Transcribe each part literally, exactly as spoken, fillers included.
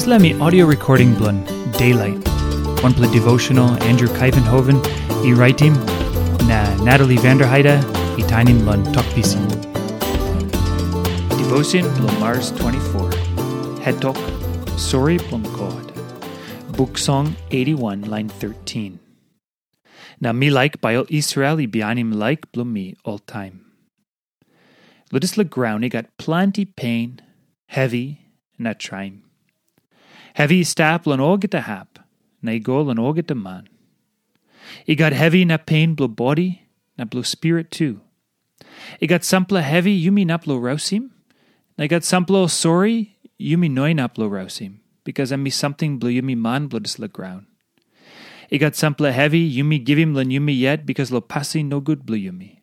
Dispela mi audio recording bilong Daylight, wanpela devotional Andrew Kaivenhoven i raitim, na Natalie Vanderheide i tainim long Tok Pisin. Devotion bilong Mars twenty-four. Het tok, Sori bilong God. Buk Song eighty-one, lain thirteen. Na mi laik bai ol Israel i bihainim laik bilong mi oltaim. Long dispela graun i gat planti pen, hevi, na traim. Hevi i stap long olgeta hap, na i go long olgeta man. I gat hevi na pen bilong bodi, na bilong spirit tu. I gat sampela hevi yumi inap long rausim, na i gat sampela ol sori yumi no inap long rausim, bikas em i samting bilong yumi man bilong dispela graun. I gat sampela hevi yumi givim long yumi yet bikas long pasin nogut bilong yumi.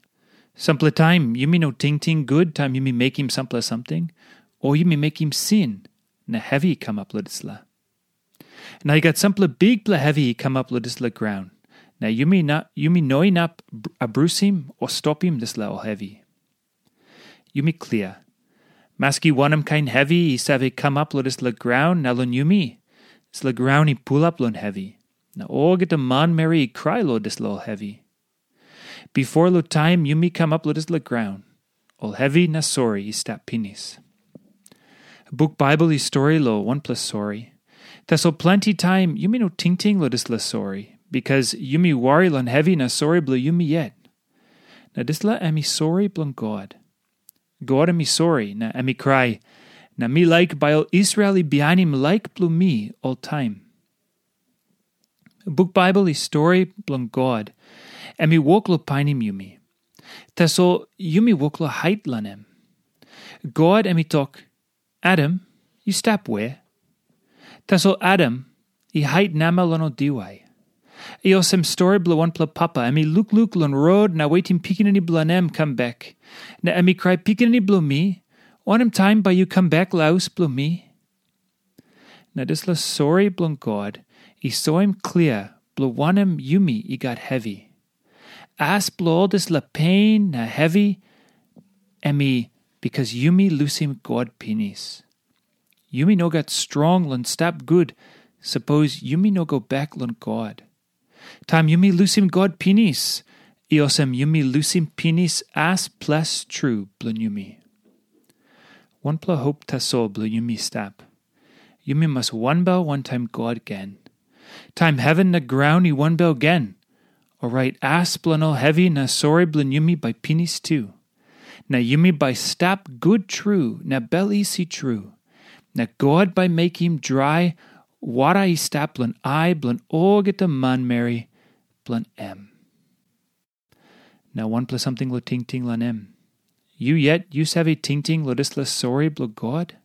Sampela taim yumi no tingting gut taim yumi mekim sampela samting, o yumi mekim sin, na hevi i kamap long dispela. Na i gat sampela bikpela hevi i kamap long dispela graun, na yumi, na, yumi no inap abrusim o stopim dispela ol hevi. Yumi klia. Maski wanem kain hevi i save kamap long dispela graun na long yumi, dispela graun i pulap long hevi, na olgeta manmeri i krai long dispela ol hevi. Bipo long taim yumi kamap long dispela graun, ol hevi na sori i stap pinis. Buk Baibel i stori long wanpela sori. Tasol planti taim yumi no tingting long dispela sori, bikas yumi wari long hevi na sori bilong yumi yet. Na dispela em i sori bilong God. God em i sori, na em i krai, na mi laik bai ol Israel i bihainim laik bilong mi oltaim. Buk Baibel i stori bilong God, em i wok long painim yumi. Tasol yumi wok long hait long em. God em i tok, Adam, yu stap we? Tasol Adam i hait namel long ol diwai. I olsem stori bilong wanpela papa, em i lukluk long rot na wetim pikinini bilong em kam bek. Na em i krai, Pikinini bilong mi, wanem taim bai yu kam bek long haus bilong mi? Na dispela sori bilong God i soim klia bilong wanem yumi i gat hevi. As bilong ol dispela pen na hevi, em i bikas yumi lusim God pinis. Yumi no gat strong long stap gut, sapos yumi no go bek long God. Taim yumi lusim God pinis, i olsem yumi lusim pinis as ples tru bilong yumi. Wanpela hop tasol bilong yumi stap. Yumi mas wanbel wantaim God gen. Taim heven na graun i wanbel gen, orait as bilong ol hevi na sori bilong yumi bai pinis tu. Na yumi bai stap gut tru na bel isi tru. Na God bai mekim drai wara i stap long ai bilong olgeta manmeri bilong em. Na wanpela samting long tingting long em. Yu yet yu save tingting long dispela sori bilong God?